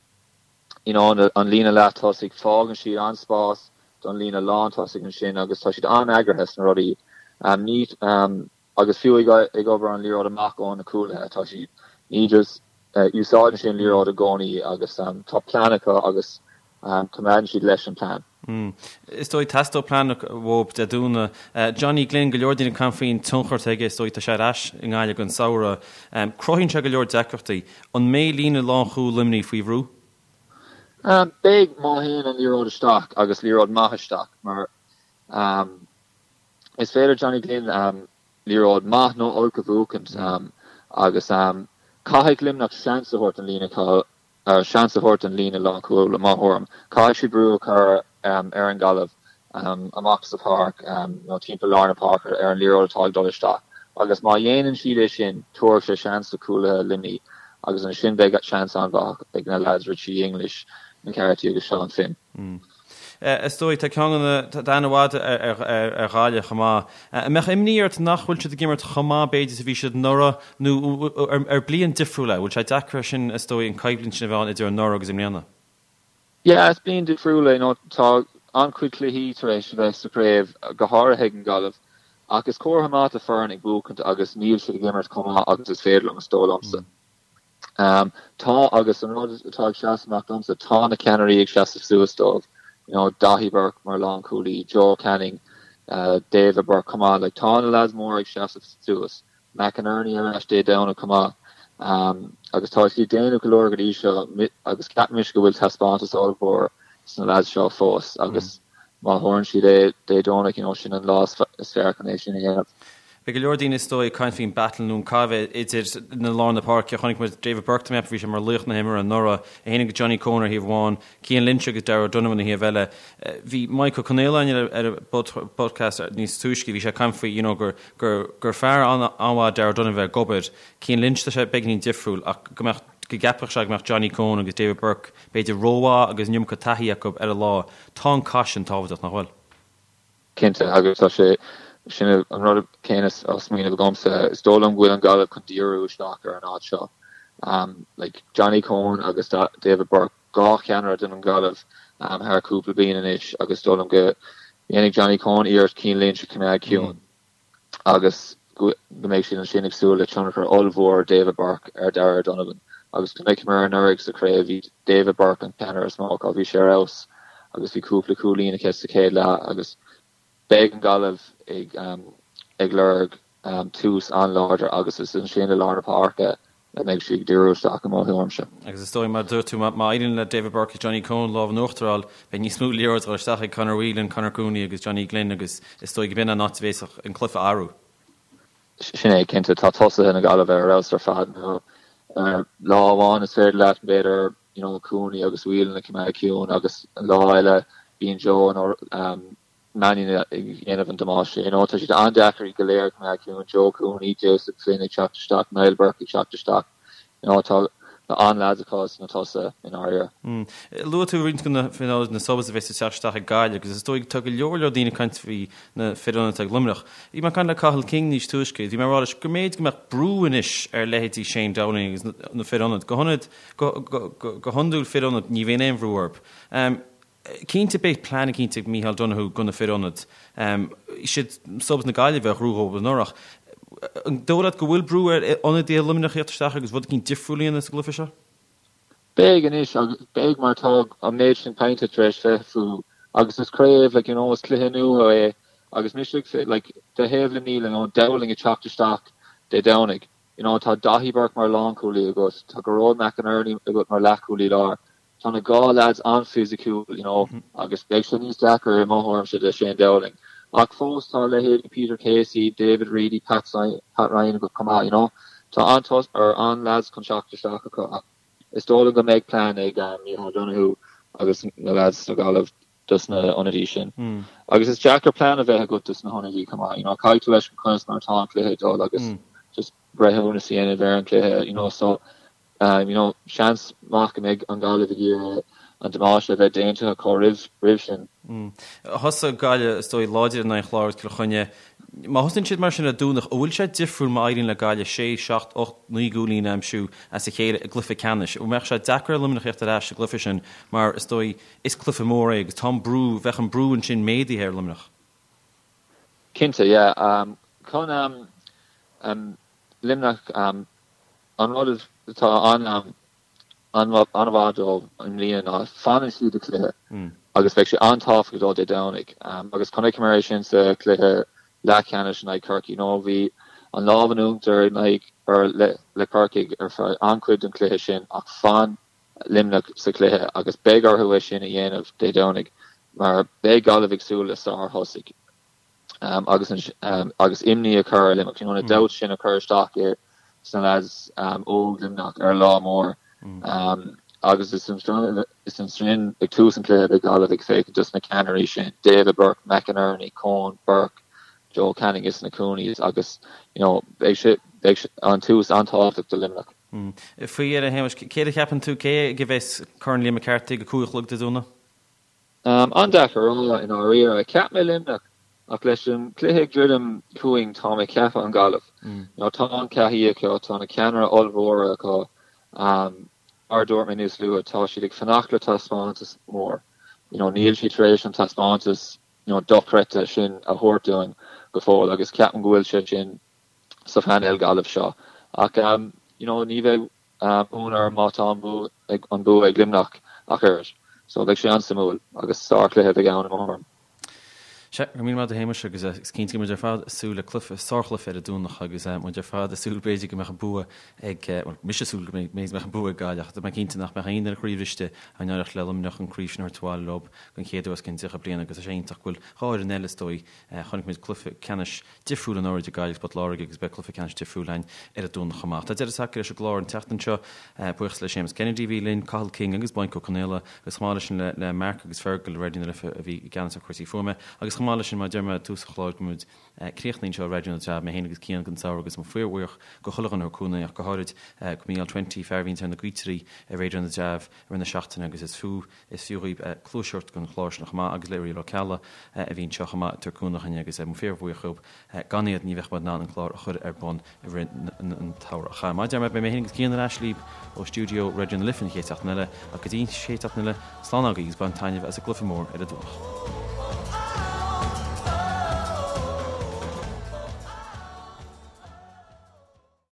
you know, an líne leath-tosaigh, fágann siad an-spás don líne lán-tosaigh ansin agus tá siad an-eagraithe sna rudaí. Ní, Agus fiú ag obair an liathróid amach ó na cúlaithe, tá siad, ní just, úsáideann siad an liathróid i gcónaí agus tá plean acu agus coimeádann siad leis an plean. Is dóigh, teastóidh plean uathu Dé Domhnaigh. Johnny Glynn, go leor daoine ag caint faoin tionchar atá aige, is dóigh, tá sé ar ais i nGaillimh don samhradh. Cruthaíonn sé go leor deacrachtaí. An mbeidh líne lánchúil Luimnigh faoi bhrú? Beidh, má théann an liathróid isteach agus liathróid maith isteach mar Is féidir Johnny Glynn liathróid maith nó olc a bhuachaint agus caithfidh Luimneach seans a thabhairt don líne seans a thabhairt don líne lánchúil i mo thuairim. Caithfidh siad brú a chur ar an Ghaillimh amach sa pháirc nó timpeall lár na páirce ar an liathróid atá ag dul isteach agus má dhéanann siad é sin tabharfaidh sé seans do chúlaithe Luimnigh agus ansin beidh seans an-mhaith ag na lads Richie English, McCarthy agus Seán Finn. Is dóigh, tá ceann de na, tá aithne mhaith ar Ghaillimh chomh maith. An mbeadh imní ort nach bhfuil siad ag imirt chomh maith b'fhéidir is a bhí siad anuraidh nó ar bliain difriúil é? Bhfuil sé deacair sin, is dóigh, an coimhlint sin a bheith ann idir anuraidh agus i mbliana? Yeah, is bliain difriúil é. You know, tá an-chuid cluichí tar éis a bheith sa chraobh, go háirithe ag an Ghaillimh. Ach is comhartha maith do foireann ag buachaint agus níl siad ag imirt chomh maith agus is féidir liom, is dóigh liomsa. Tá agus an rud atá ag seasamh amach domsa, tá na ceannairí ag seasamh suas dóibh, you know, Daithí Burke mar lánchúlaí, Joe Canning, David Burke chomh maith, like tá na lads móra ag seasamh suas, McInerney ar ais Dé Domhnaigh chomh maith agus tá siad ag déanamh go leor go dtí seo agus ceapann mise go bhfuil taispeántas ollmhór sna lads seo fós agus má thabharann siad é Dé Domhnaigh, you know, sin an lá is fearr chun é sin a dhéanamh. Beidh go leor daoine is dóigh ag caint faoin battle nó an cath a bheidh idir na lár na páirce. Chonaic muid David Burke, tá mé ag ceapadh, bhí sé mar laoch na himeartha anuraidh, é féin agus Johnny Coen ar thaobh amháin, Cian Lynch agus Darragh O'Donovan ar thaobh eile. Bhí Mike Ó Conaola ar an bpodcast níos túisce, bhí sé ag caint faoi you know gur gur gur fear an-mhaith Darragh O'Donovan ag obair. Cian Lynch tá sé beagáinín difriúil ach go mbeadh go gceapfadh sé go mbeadh Johnny Coen agus David Burke b'fhéidir rómhaith agus an iomarca taithí acu ar an lá. Tá an cath sin tábhachtach, nach bhfuil? Cinnte, agus tá sé, sin an rud céanna á smaoineamh agamsa. Is dóigh liom go bhfuil an Ghaillimh chun díriú isteach ar an áit seo. Like, Johnny Coen agus David Burke, 2 cheannaire don Ghaillimh thar cúpla bliain anois agus is dóigh liom go ndéanfaidh Johnny Coen iarracht Cian Lynch a choimeád ciúin agus go mbeidh siad ansin ag súil le tionchar ollmhór David Burke ar Darragh O'Donovan. Agus chonaiceamar anuraidh sa chraobh, bhí David Burke an ceannaire is mó acu, bhí sé ar fheabhas agus bhí cúpla cúilín aige sa chéad leath agus beidh an Ghaillimh ag ag lorg tús an-láidir agus is ansin i lár na páirce a mbeidh siad ag díriú isteach i mo thuairimse. Agus is dóigh, mar a dúirt tú, má éiríonn le David Burke agus Johnny Coen lámh in uachtar a fháil, beidh níos mó liathróid ag dul isteach ag Conor Whelan, Conor Cooney agus Johnny Glynn agus is dóigh go b'in an áit a bhféadfadh an cluiche a athrú. Sin é, cinnte. Tá tosaithe na Gaillimhe ar fheabhas ar fad. Lá amháin is féidir leat, b'fhéidir, you know, Cooney agus Whelan a choimeád ciúin agus an lá eile bíonn Joe nó Mannion ag déanamh an damáiste. You know, tá siad an-deacair iad go léir a choimeád ciúin, Joe Cooney, Joseph Flynn ag teacht isteach, Niall Burke ag teacht isteach. You know, tá an-leaids acu sna tosaithe i ndáiríre. Luaigh tú roinnt de na fir ionaid, na subs a bheas ag teacht isteach ag Gaillimh agus is dóigh tá go leor leor daoine ag caint faoi na fir ionaid atá ag Luimneach. Bhí mé ag caint le Cathal King níos túisce, bhí mé ag rá leis go mb'fhéidir go mbeadh brú anois ar leithéidí Shane Dowling agus na fir ionaid. Go hionad, go, go, go, go hiondúil fir ionaid ní bhíonn aon bhrú orthu. Cinnte beidh plean eicínt ag Micheál Donoghue do na fir ionaid. Siad subs na Gaillimhe a ghnóthaigh dóibh anuraidh. An dóigh leat go bhfuil brú ar ionadaithe Luimneach a theacht isteach agus rud eicínt difriúil a dhéanamh sa gcluiche seo? Beidh anois agus beidh mar tá an méid sin cainte tar éis bheith fúthu agus is craobh like you know is cluiche nua é agus mise ag like de thaobh Luimnigh you know Dowling ag teacht isteach Dé Domhnaigh you know tá Daithí Burke mar lánchúlaí agat tá Gearóid McInerney agat mar leathchúlaí láir Tá na 2 leaids an-fhisiciúil, you know, agus beidh sé níos deacair i mo thuairimse do Shane Dowling. Ach fós tá leithéidí Peter Casey, David Reidy, Pat Pat Ryan acu chomh maith, you know. Tá an-tos or an-leaids chun teacht isteach acu ach is dóigh liom go mbeidh plean ag Micheál Donoghue agus na leaids sa Ghaillimh dos na hionadaí sin. Agus is deacair plean a bheith agat dos na hionadaí chomh maith, you know, caithfidh tú fheiscint conas mar atá an cluiche ag dul agus just breithiúnas a dhéanamh ar an cluiche, you know, so You know, seans maith go mbeidh an Ghaillimh ag iarraidh an damáiste a bheith déanta acu roimh roimh sin. Thosaigh Gaillimh, is dóigh, láidir in aghaidh an Chláir agus Cill Chainnigh. Má thosaíonn siad mar sin ar Domhnach, an bhfuil sé difriúil má éiríonn le Gaillimh sé, seacht, 8, 9 gcúilín a aimsiú as a chéile i gcluiche ceannais? An mbeadh sé deacair ar Luimneach theacht ar ais sa gcluiche sin mar, is dóigh, is cluiche mór é agus tá an brú, bheadh an brú ansin méadaithe ar Luimneach? Cinnte, yeah. Chun Luimneach, An rud atá an-mhaith dóibh i mbliana ná fanann siad sa chluiche agus beidh sé an-tábhachtach dóibh Dé Domhnaigh agus chonaiceamar é sin sa chluiche leathcheannais in aghaidh Chorcaí. Nó bhí an lámh in uachtar in aghaidh or le Corcaigh ar feadh an-chuid den chluiche sin ach fan Luimneach sa chluiche agus beidh orthu é sin a dhéanamh Dé Domhnaigh mar beidh Gaillimh ag súil le sár-thosaigh. agus agus imní a chur ar Luimneach, you know, na doubts sin a chur isteach i sna lads óg Luimneach ar lá mór. Agus is is ansin ag tús an chluiche beidh Gaillimh ag féachaint dos na ceannairí sin, David Burke, McInerney, Coen, Burke, Joe Canning is na Cooneys agus you know, beidh sé beidh sé an tús an-tábhachtach do Luimneach. Faoi dheireadh, a Shéamais, céard a cheapann tú, cé aige a bheas Corn Liam McCarthy ag a 5 a chlog Dé Domhnaigh? An-deacair a rá i ndáiríre. Cheap mé Luimneach ach leis an cluiche ag druidim chugainn tá mé ag ceapadh an Ghaillimh. You know, tá an taithí acu, tá na ceannairí ollmhóra acu. Mar a dúirt mé níos luaithe, tá siad ag fanacht le taispeántas mór. You know, níl siad tar éis an taispeántas you know, dochreidte sin a thabhairt dúinn. go fóill agus ceapaim go bhfuil sé sin sa phainéal Gaillimh seo. Ach you know ní bheidh ionadh orm má tá an bua ag an bua ag Luimneach ach oiread. So beidh sé an-suimiúil agus sárchluiche a bheidh ann i mo thuairim. Sea, go raibh míle maith agat a Shéamais agus is cinnte go mbeidh muid ar fad ag súil le cluiche, sárchluiche ar an Domhnach agus muid ar fad ag súil b'fhéidir go mbeadh an bua ag, bhuel mise ag súil go mbeidh an bua ag Gaillimh ach tá mé cinnte nach mbeadh aon duine croíbhriste dá n-éireodh le Luimneach an craobh sin a thabhairt abhaile leo den chéad uair os cionn 30 bliain agus tá sé iontach go bhfuil dhá fhoireann eile is dóigh Chonaic muid cluiche ceannais difriúil anuraidh idir Gaillimh agus Port Láirge agus beidh cluiche ceannais difriúil againn ar an Domhnach chomh maith. Tá deireadh tagtha leis an gclár an tseachtain seo. Buíochas le Séamus Kennedy a bhí linn, Cathal King agus Maidhc Ó Conaola agus chomh maith leis sin le Mark agus Fergal i Raidió na Life a bhí i gceannas ar chúrsaí fuaime agus chomh maith leis sin mar a deir mé i dtús an chláir go mbeidh críochnaithe anseo i Raidió na dTreabh, mé féin agus Cian don samhradh agus muid fíorbhuíoch go chuile dhuine a thug cúnamh ach go háirid go Mícheál Twenty, fear a bhíonns ar na gaotairí i Raidió na dTreabh i rith na seachtaine agus is fiú Is fiú dhaoibh cluas a thabhairt don chlár sin chomh maith agus le Uriel Ó Ceallaigh a bhí anseo chomh maith ag tabhairt cúnamh dhúinn agus muid fíorbhuíoch dhóibh. Gan iad ní bheadh muid in ann an clár a chur ar bun i rith an tsamhraidh. Mar a deir mé, beidh mé féin agus Cian ar ais libh ó stiúideo Raidió na Life an chéad seachtain eile ach go dtí an chéad seachtain eile, slán agaibh agus bain taitneamh as an gcluiche mór ar an Domhnach.